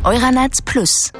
Euranet Plus.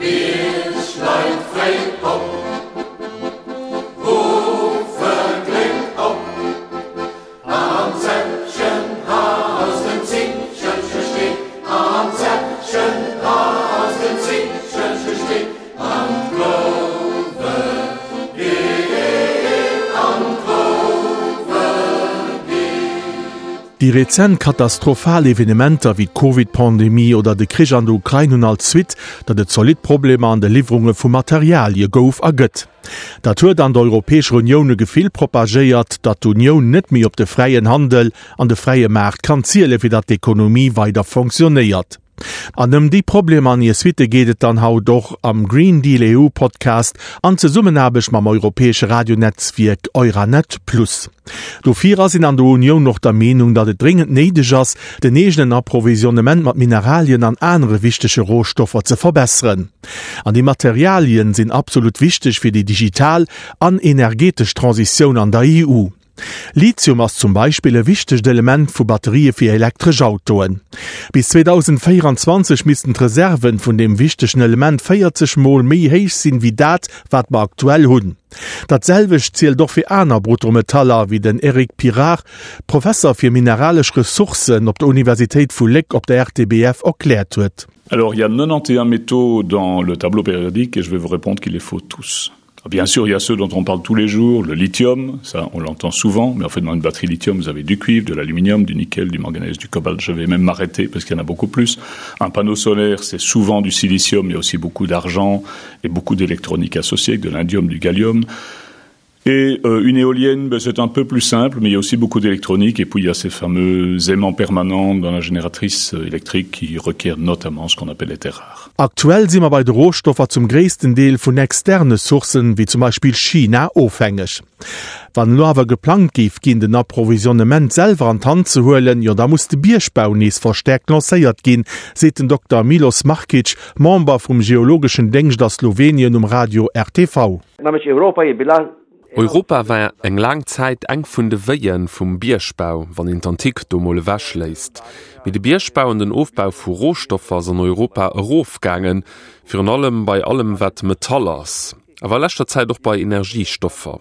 Déi rezent katastrophal Evenementer wéi d'Covid-Pandemie oder de Krich an der Ukrain hunn als Suite, datt et zolidd Problemer an de Liwwerunge vu Materialie gouf a gëtt. Dat huet an der Europäescher Unioun e Gefill propagéiert, datt d'Unioun net méi op de fräien Handel an de fräie Maart kann ziele fir datt d'Ekonomie weider fonctionnéiert. An ëm déi Problemer an hir Suitte geet et dann haut och am Green Deal EU Podcast an Zesummenaarbecht mam europäesche Radionetzwierk Euranet Plus. Dofir ass een an der Unioun och der Meenung, datt et dréngend néideg ass, den eegenen Approvisionnement mat Mineralien an anere wichtege Rohstoffer ze verbesseren. An déi Materialien sinn absolut wichteg fir déi digital an energetesch Transitioun an der EU. Lithium ass zum Beispill e wichtegt Element vu Batterië fir elektresch Autoen. Bis 2024 missten d'Reserven vun deem wichtegen Element 40 Mol méi héich sinn, wéi dat, wat mer aktuell hunn. Dat selwecht zielt och fir aner Bruttometaller, wéi den Eric Pirard, Professer fir mineralesch Ressourcen op der Universitéit vu Léck op der RTBF erkläert huet. Alors, il y a 91 métaux dans le tableau périodique et je vais vous répondre qu'il les faut tous. Ah, bien sûr, il y a ceux dont on parle tous les jours, le lithium, ça on l'entend souvent, mais en fait dans une batterie lithium, vous avez du cuivre, de l'aluminium, du nickel, du manganèse, du cobalt, je vais même m'arrêter parce qu'il y en a beaucoup plus. Un panneau solaire, c'est souvent du silicium, il y a aussi beaucoup d'argent et beaucoup d'électronique associée, de l'indium, du gallium. Et euh, une éolienne, c'est un peu plus simple, mais il y a aussi beaucoup d'électronique et puis il y a ces fameux aimants permanents dans la génératrice euh, électrique qui requiert notamment ce qu'on appelle les terres rares. Aktuell si mer bei de Rohstoffer zum gréissten Deel vun externe Sourcen, wéi zum Beispill China, ofhängeg. Wann elo awer geplangt géif ginn, den Approvisionnement selwer an d'Hand ze huelen, jo da muss de Biergbau nees verstäerkt lancéiert ginn, seet den Dokter Milos Markic, Member vum geologeschen Déngscht a Slowenien um Radio RTV. Europa war eng laang Zäit eng vun de Wéien vum Biergbau, wann een d'Antik do mol ewech léisst. Mee de Biergbau an den Ofbau vu Rohstoffer ass an Europa erofgaangen, virun allem bei allem wat Metall ass, awer a leschter Zäit och bei Energiestoffer.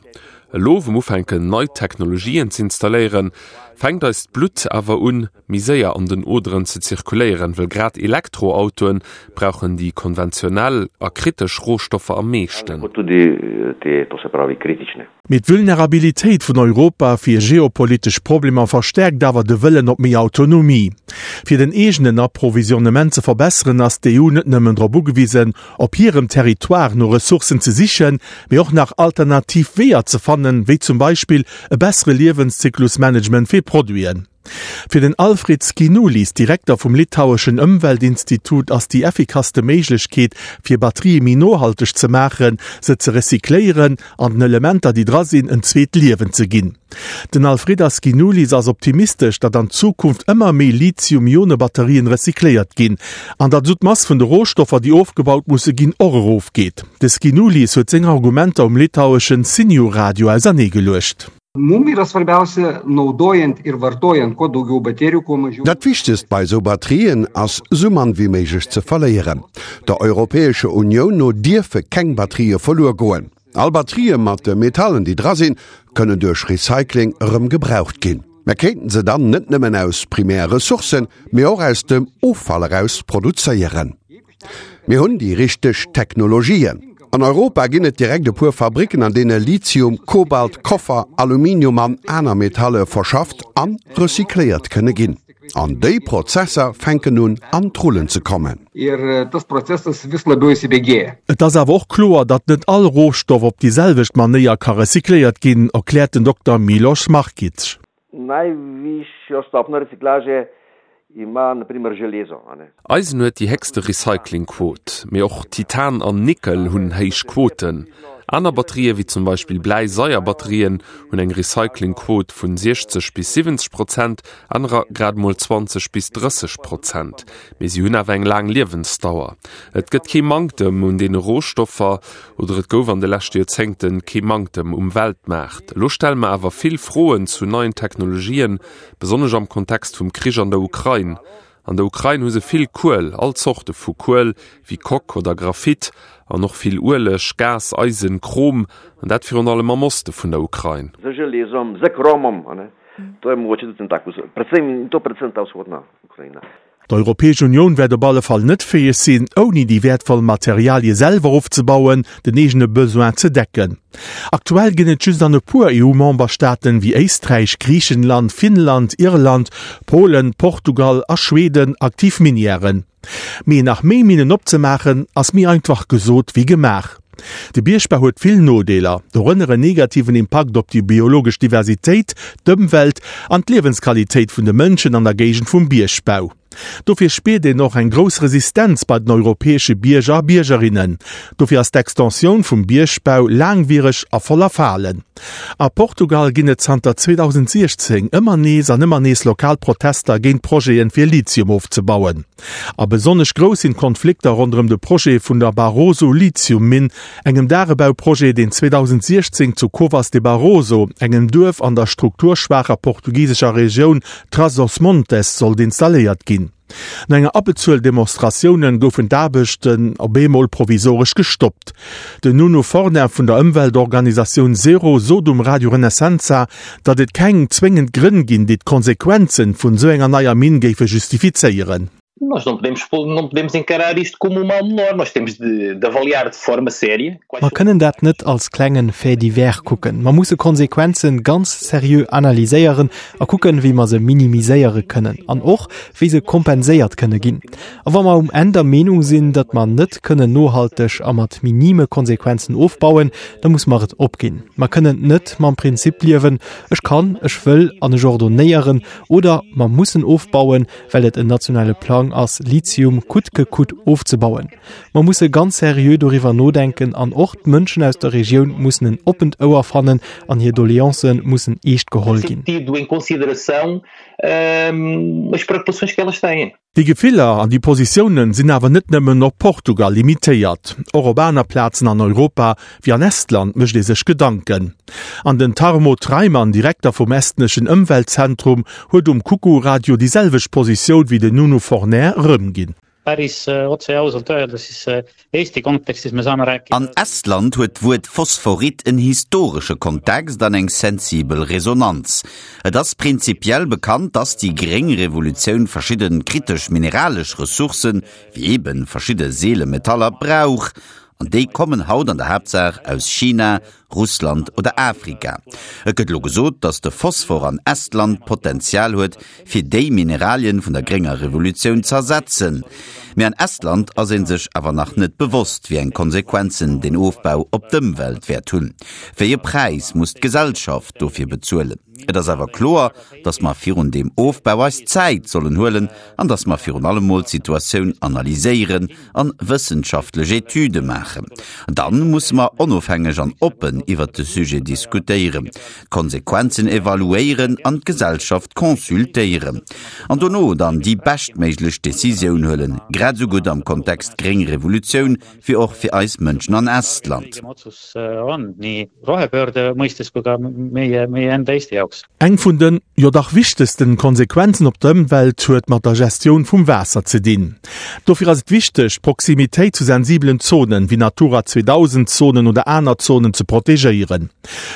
Elo wou mer ufänken nei Technologien z'installéieren, fänkt eist Blutt awer un méi séier an den Oderen ze zirkuléieren, wëll grad Elektroautoen brauchen déi konventionell a kritesch Rohstoffer am meeschten. Mee d'Vulnerabilitéit vun Europa fir geopolitesch Problemer verstäerkt awer de Wëllen op méi Autonomie. Fir den eegenen Approvisionnement ze verbesseren, ass d'EU net nëmmen drop ugewisen, op hirem Territoire no Ressourcen ze sichen, mee och nach alternativ Weeër ze fannen, wéi zum Beispill e bessere Liewenszyklusmanagement fir Produiten. Fir den Alfred Skinoulis, Direkter vum litaueschen Ëmweltinstitut, ass déi effikasste Méiglechkeet, fir Batterië méi nohalteg ze maachen, se ze recycléieren an den Elementer, déi dra sinn, en zweet Liewen ze ginn. Den Alfredas Skinoulis ass optimistesch, datt an Zukunft ëmmer méi Lithium-Ione-Batterien recycléiert ginn an datt esou d'Mass vun de Rohstoffer, déi ofgebaut musse ginn, och erofgeet. De Skinoulis huet seng Argumenter um litaueschen Siniu Radio auserneegeluecht. Mum yra svarbiausia naudojant ir vartojant kuo daugiau baterijų, kuo mažiau. Dat Wichtegst bei esou Batterien ass, sou mann wéi méiglech ze verléieren. Der Europäescher Unioun no dierfe keng Batterië verluer goen. All Batterië mat de Metallen, déi dra sinn, kënnen duerch Recycling erëm gebraucht ginn. Mer kéinten se dann net nëmmen aus primär Ressourcen, mee och aus dem Offall eraus produzéieren. Mir hunn déi richteg Technologien. An Europa ginn et direkt e puer Fabricken, an deene Lithium, Kobalt, Koffer, Aluminium an aner Metalle verschafft a recycléiert kënne ginn. An déi Prozesser fänken un an d'Rullen ze kommen. Et ass awer och kloer, datt net all Rohstoff op déi selwecht Manéier ka recycléiert ginn, erkläert den Dokter Miloš Markic. Najvišjo stopnjo reciklaže ima na primer železo, a ne. Eisen huet déi héchste Recyclingquot, mee och Titan an Nickel hunn héich Quoten. Aner Batterië wéi zum Beispill Bläi-Saier-Batterien hunn eng Recyclingquot vun 60 bis 70 Prozent, anerer grad emol 20 bis 30 Prozent. Mee si hunn awer eng laang Liewensdauer. Et gëtt kee Manktem un deene Rohstoffer. Oder et gouf an de leschte Joerzéngte kee Manktem um Weltmaart. Elo stelle mer awer vill Froen zu neien Technologien, besonnesch am Kontext vum Krich an der Ukrain. An der Ukrain hu se vill Kuel, all Zorte vu Kuel, wéi Coque oder Graphit, an och vill Ueleg, Gas, Eisen, Chrom, an dat virun allem am Oste vun der Ukrain. D'Europäesch Unioun wäert op alle Fall net fäeg sinn, ouni déi wäertvoll Materialie selwer ofzebauen, den eegene Besoin ze decken. Aktuell ginn et just an e puer EU-Memberstaaten, wéi Éisträich, Griichenland, Finnland, Irland, Polen, Portugal a Schweden aktiv Minièren. Mee nach méi Minnen opzemaachen, ass méi einfach gesot wéi gemaach. De Biergbau huet vill Nodeeler, dorënner en negativen Impakt op déi biologesch Diversitéit, d'Ëmwelt an d'Liewensqualitéit vun de Mënschen an der Géigend vum Biergbau. Dofir spiert een och eng grouss Resistenz bei den europäesche Bierger a Biergerinnen. Dofir ass d'Extensioun vum Biergbau laangwiereg a voller Falen. A Portugal ginn et zanter 2016 ëmmer nees an ëmmer nees lokal Protester géint Projeten, fir Lithium ofzebauen. A besonnesch grouss sinn d'Konflikter ronderëm de Projet vun der Barroso Lithium-Minn, engem Dagebauprojet, deen 2016 zu Covas de Barroso, engem Duerf an der strukturschwaacher portugisescher Regioun Trás-os-Montes, sollt installéiert ginn. No enger Abbezuel Demonstratioune goufen d'Aarbechten op eemol provisoresch gestoppt. Den Nuno Forner vun der Ëmweltorganisatioun Zero sot um Radio Renascença, datt et keng zwéngend Grënn ginn, déi d'Konsequenze vun esou enger neier Minn géife justifizéieren. Nós não podemos, não podemos encarar isto como um mal menor, nós temos de, de avaliar de forma séria. Mer kënnen dat net als klengen Fait divers kucken. Mer musse Konsequenzen ganz seriö analyséieren a kucken, wéi mer se minimiséiere kënnen an och, wéi se kompenséiert kënne ginn. A wa mer um Enn der Meenung sinn, datt mer net kënnen nohalteg a mat minime Konsequenzen ofbauen, da muss mer et opginn. Mer kënnen net mam Prinzip liewen, ech kann, ech wëll an ech ordonnéieren, oder mer mussen ofbauen, well et en nationale Plang ass, Lithium coûte que coûte ofzebauen. Mer musse ganz seriö doriwwer nodenken an och d'Mënschen aus der Regioun mussen en oppent Ouer fannen an hir Doleancë mussen eescht geholl ginn. Déi Gefiller an déi Positiounen sinn awer net nëmmen op Portugal limitéiert. Och op aner Plazen an Europa, wéi an Estland, mécht ee sech Gedanken. An den Tarmo Treimann, Direkter vum estneschen Ëmweltzentrum, huet um Kuku-Radio déi selwecht Positioun wéi den Nuno Forner erëmginn. Päris otse ja ausalt öelda, siis Eesti kontekstis me saame rääkida. An Estland huet d'Wuert Phosphorit en historesche Kontext an eng sensibel Resonanz. Et ass prinzipiell bekannt, dass déi gréng Revolutioun verschidde kritesch mineralesch Ressourcen, wéi eebe verschidde seele Metaller, brauch. An déi kommen haut an der Haaptsaach aus China, Russland oder Afrika. Et gëtt elo gesot, datt de Phosphor an Estland d'Potenzial huet, fir déi Mineralien vun der grénger Revolutioun z'ersetzen. Mee an Estland ass ee sech awer nach net bewosst, wéi eng Konsequenzen deen Ofbau op d'Ëmwelt wäert hunn. Wéi e Präis muss d'Gesellschaft dofir bezuelen? Et ass awer kloer, datt mer virun deem Ofbau eis Zäit sollen huelen an datt mer virun allem mol d'Situatioun analyséieren an wëssenschaftlech Etüde maachen. Dann musse mer onofhängeg an oppen iwwert de Sujet diskutéieren, d'Konsequenzen evaluéieren an d'Gesellschaft consultéieren. An dono dann déi beschtméiglech Decisioun huelen, grad esou gutt am Kontext gréng Revolutioun wéi och fir eis Mënschen an Estland. Eng vun den, jo dach wichtegsten Konsequenzen op d'Ëmwelt huet mat der Gestioun vum Waasser ze dinn. Dofir ass et wichteg, d'Proximitéit zu sensibelen Zonen, wéi Natura 2000 Zonen oder aner Zonen ze protegéieren.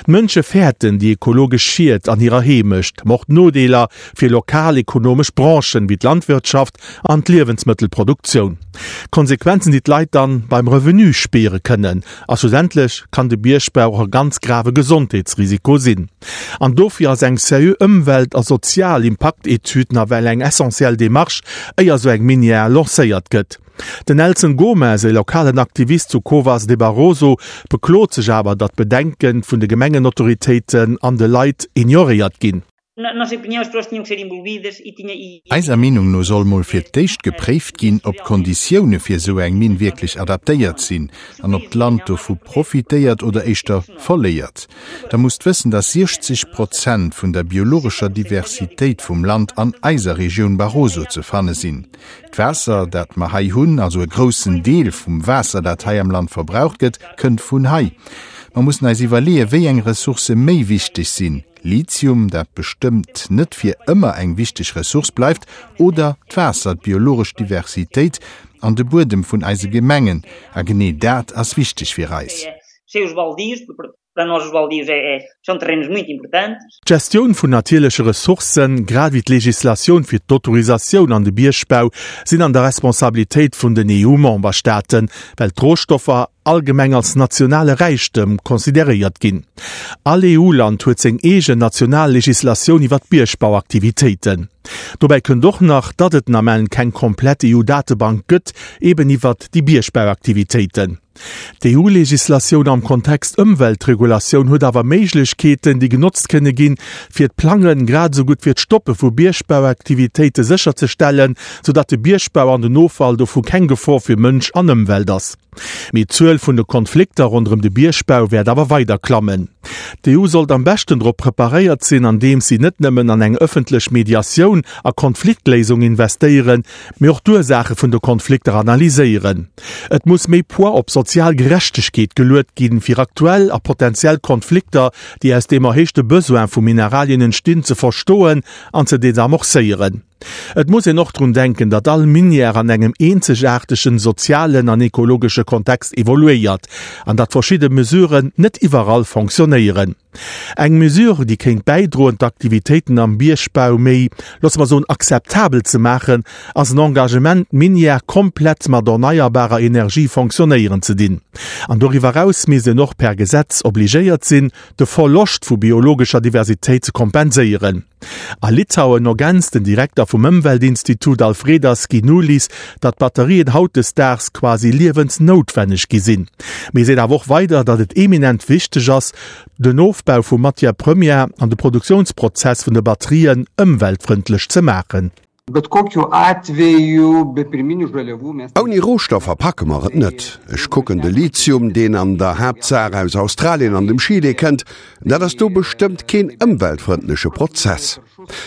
D'Mënsche fäerten déi ekologesch Schied an hirer Heemecht, ma och d'Nodeeler fir lokal ekonomesch Branchen, wéi d'Landwirtschaft an d'Liewensmëttelproduktioun. Konsequenzen, déi d'Leit dann beim Revenu spiere kënnen. A schlussendlech kann de Biergbau och e ganz grave Gesondheetsrisiko sinn. An dofir ass eng seriö Ëmwelt a sozial Impaktetüd nawell eng essentiell Demarche, éier esou eng Minière lancéiert gëtt. Den Nelson Gomes, e lokalen Aktivist zu Covas de Barroso, beklot sech awer, datt d'Bedenke vun de Gemengenautoritéiten an de Leit ignoréiert ginn. Eiser Meenung no soll mol fir d'éischt gepréift ginn, ob d'Konditioune fir esou eng Minn wierklech adaptéiert sinn an ob d'Land dovu profitéiert oder éischter verléiert. Der musst wëssen, dass 60 Prozent vun der biologescher Diversitéit vum Land an eiser Regioun Barroso ze fanne sinn. D'Waasser, dat mer hei hunn, also e groussen Deel vum Waasser, dat hei am Land verbraucht gëtt, kënnt vun hei. Mer mussen eis iwwerleeën, wéi eng Ressourcë méi wichteg sinn, Lithium, dat bestëmmt net fir ëmmer eng wichteg Ressource bleift, oder d'Waasser, d'biologesch Diversitéit an de Buedem vun eise Gemengen. A genee dat ass wichteg fir eis. D'Gestioun vun natierleche Ressourcen, grad ewéi d'Legislatioun fir d'Autorisatioun an de Biergbau sinn an der Responsabilitéit vun den EU-Memberstaaten, well d'Rohstoffer allgemeng als nationale Räichtëm consideréiert ginn. All EU-Land huet seng eegen national Legislatioun iwwer d'Biergbauaktivitéiten. Dobäi kënnt och nach, datt et den Ament keng komplett EU-Datebank gëtt, eben iwwert déi Biergbauaktivitéiten. D'EU-Legislatioun am Kontext Ëmweltregulatioun huet awer Méiglechkeeten, déi genotzt kënne ginn, fir d'Plangen, grad esou gutt fir d'Stoppe vu Biergbauaktivitéite sécherzestellen, soudatt de Biergbau an den Offall dovu keng Gefor fir Mënsch an Ëmwelt ass. Mee d'Zuel vun de Konflikter ronderëm de Biergbau wäert awer weider klammen. D'EU sollt am beschten drop preparéiert sinn, andeems si net nëmmen an eng ëffentlech Mediatioun a Konfliktléisung investéieren, mee och d'Ursaache vun de Konflikter analyséieren. Et muss méi Poids op sozial Gerechtegkeet geluet ginn, fir aktuell a potentiell Konflikter, déi aus deem erhéichte Besoin vu Mineralien entstinn, ze verstoen an ze desamorcéieren. Et muss een och drun denken, datt all Minière an engem eenzegaartegen sozialen an ekologesche Kontext evoluéiert an datt verschidde Mesuren net iwwerall fonctionnéieren. Eng Mesure, déi kéint bäidroen, d'Aktivitéiten am Biergbau méi, loosse mer soen, akzeptabel ze maachen, ass en Engagement, d'Minière komplett mat erneierbarer Energie fonctionnéieren ze dinn. An doriwwer eraus misst een och per Gesetz obligéiert sinn, de Verloscht vu biologescher Diversitéit ze kompenséieren. A Litauen ergänzt den Direkter vum Ëmweltinstitut Alfredas Ginulis, datt Batterien hautdesdaags quasi liewensnoutwenneg gi sinn. Mee seet awer och weider, datt et eminent wichteg ass, den Ofbau vu Matière première an de Produktiounsprozess vun de Batterien ëmweltfrëndlech ze maachen. Bet kokiu atveju be pirminių žaliavų mes. Ouni Rohstoffer packe mer et net. Ech kucken de Lithium, deen an der Haaptsaach aus Australien an dem Chile kënnt, dat ass do bestëmmt keen ëmweltfrëndleche Prozess.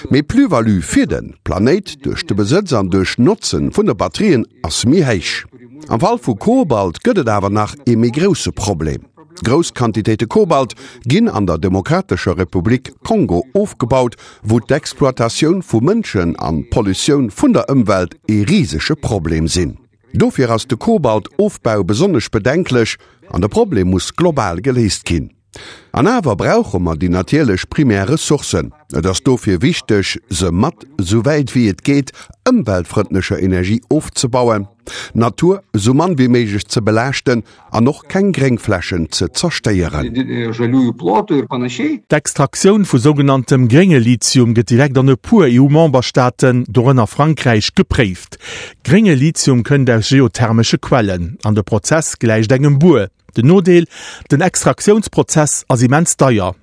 Mee d'Plus-value fir de Planéit duerch de Besëtz an duerch d'Notze vun de Batterien ass méi héich. Am Fall vu Kobalt gëtt et awer nach ee méi grousse Problem. Grouss Quantitéite Kobalt ginn an der Demokratescher Republik Kongo ofgebaut, wou d'Exploitatioun vu Mënschen an d'Pollutioun vun der Ëmwelt ee risege Problem sinn. Dofir ass de Kobalt-Ofbau besonnesch bedenklech an de Problem muss global geléist ginn. An awer brauche mer déi natierlech primär Ressourcen. Et ass dofir wichteg, se mat, sou wäit wéi et geet, ëmweltfrëndlecher Energie ofzebauen, d'Natur sou mann wéi méiglech ze belaaschten an och keng Gréngflächen ze zerstéieren. D'Extraktioun vu sougenanntem grénge Lithium gëtt direkt an e puer EU-Memberstaaten, dorënner Frankräich, gepréift. Grénge Lithium kënnt aus geothermesche Quellen an de Prozess gläicht engem Buer. Den Nodeel, Den Extraktiounsprozess ass immens deier.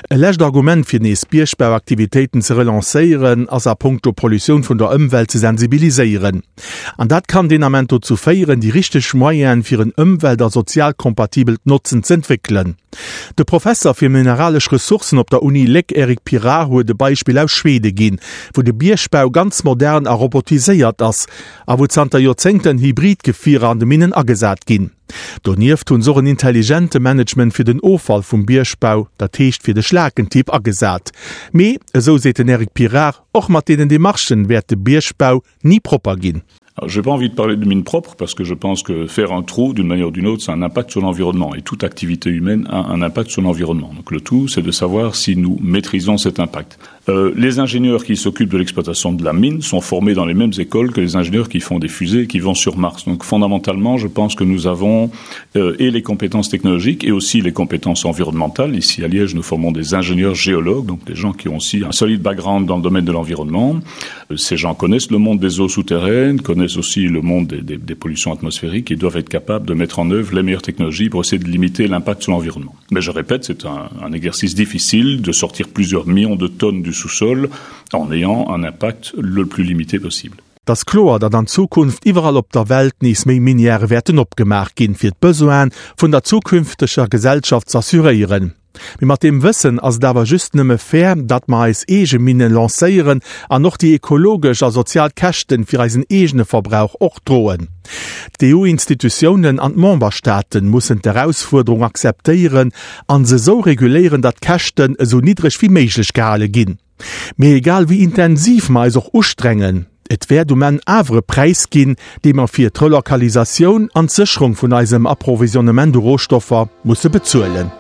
E lescht Argument fir nees Biergbauaktivitéiten ze relancéieren, ass a punkto Pollutioun vun der Ëmwelt ze sensibiliséieren. An dat kann deen Ament dozou féieren, déi richteg Moyene fir en ëmwelt a sozialkompatibelt Notzen z'entwéckelen. De Professer fir mineralesch Ressourcen op der Uni Léck Eric Pirard huet e Beispill aus Schwede ginn, wou de Biergbau ganz modern a robotiséiert ass a wou zanter Joerzéngten Hybridgefierer an de Minnen agesat ginn. Donieft hunn se och en intelligente Management fir den Offall vum Biergbau, dat heescht fir de Schlakentipp, agesat. Mee, esou seet den Eric Pirard, och mat deenen Demarchen wäert de Biergbau ni propper ginn. J'ai pas envie de parler de mine propre parce que je pense que faire un trou d'une manière ou d'une autre, ça a un impact sur l'environnement et toute activité humaine a un impact sur l'environnement. Donc le tout, c'est de savoir si nous maîtrisons cet impact. Euh, les ingénieurs qui s'occupent de l'exploitation de la mine sont formés dans les mêmes écoles que les ingénieurs qui font des fusées et qui vont sur Mars. Donc fondamentalement, je pense que nous avons euh, et les compétences technologiques et aussi les compétences environnementales. Ici à Liège, nous formons des ingénieurs géologues, donc des gens qui ont aussi un solide background dans le domaine de l'environnement. Euh, ces gens connaissent le monde des eaux souterraines, connaissent aussi le monde des, des, des pollutions atmosphériques et doivent être capables de mettre en œuvre les meilleures technologies pour essayer de limiter l'impact sur l'environnement. Mais je répète, c'est un, un exercice difficile de sortir plusieurs millions de tonnes du sous-sol en ayant un impact le plus limité possible. Et ass kloer, datt an Zukunft iwwerall op der Welt nees méi Minièrë wäerten opgemaach ginn, fir d'Besoine vun der zukünfteger Gesellschaft z'assuréieren. Mee mat deem Wëssen ass et awer just nëmme fair, datt mer eis eege Minne lancéieren an och déi ekologesch a sozial Käschten fir eisen eegene Verbrauch och droen. D'EU-Institutiounen an d'Memberstaaten mussen d'Erausfuerderung akzeptéieren an se esou reguléieren, datt d'Käschten esou niddreg wéi méiglech gehale ginn. Mee egal wéi intensiv mer eis och ustrengen, et wäert um Enn awer e Präis ginn, dee mer fir d'Relokalisatioun an d'Sécherung vun eisem Approvisionnement u Rohstoffer musse bezuelen.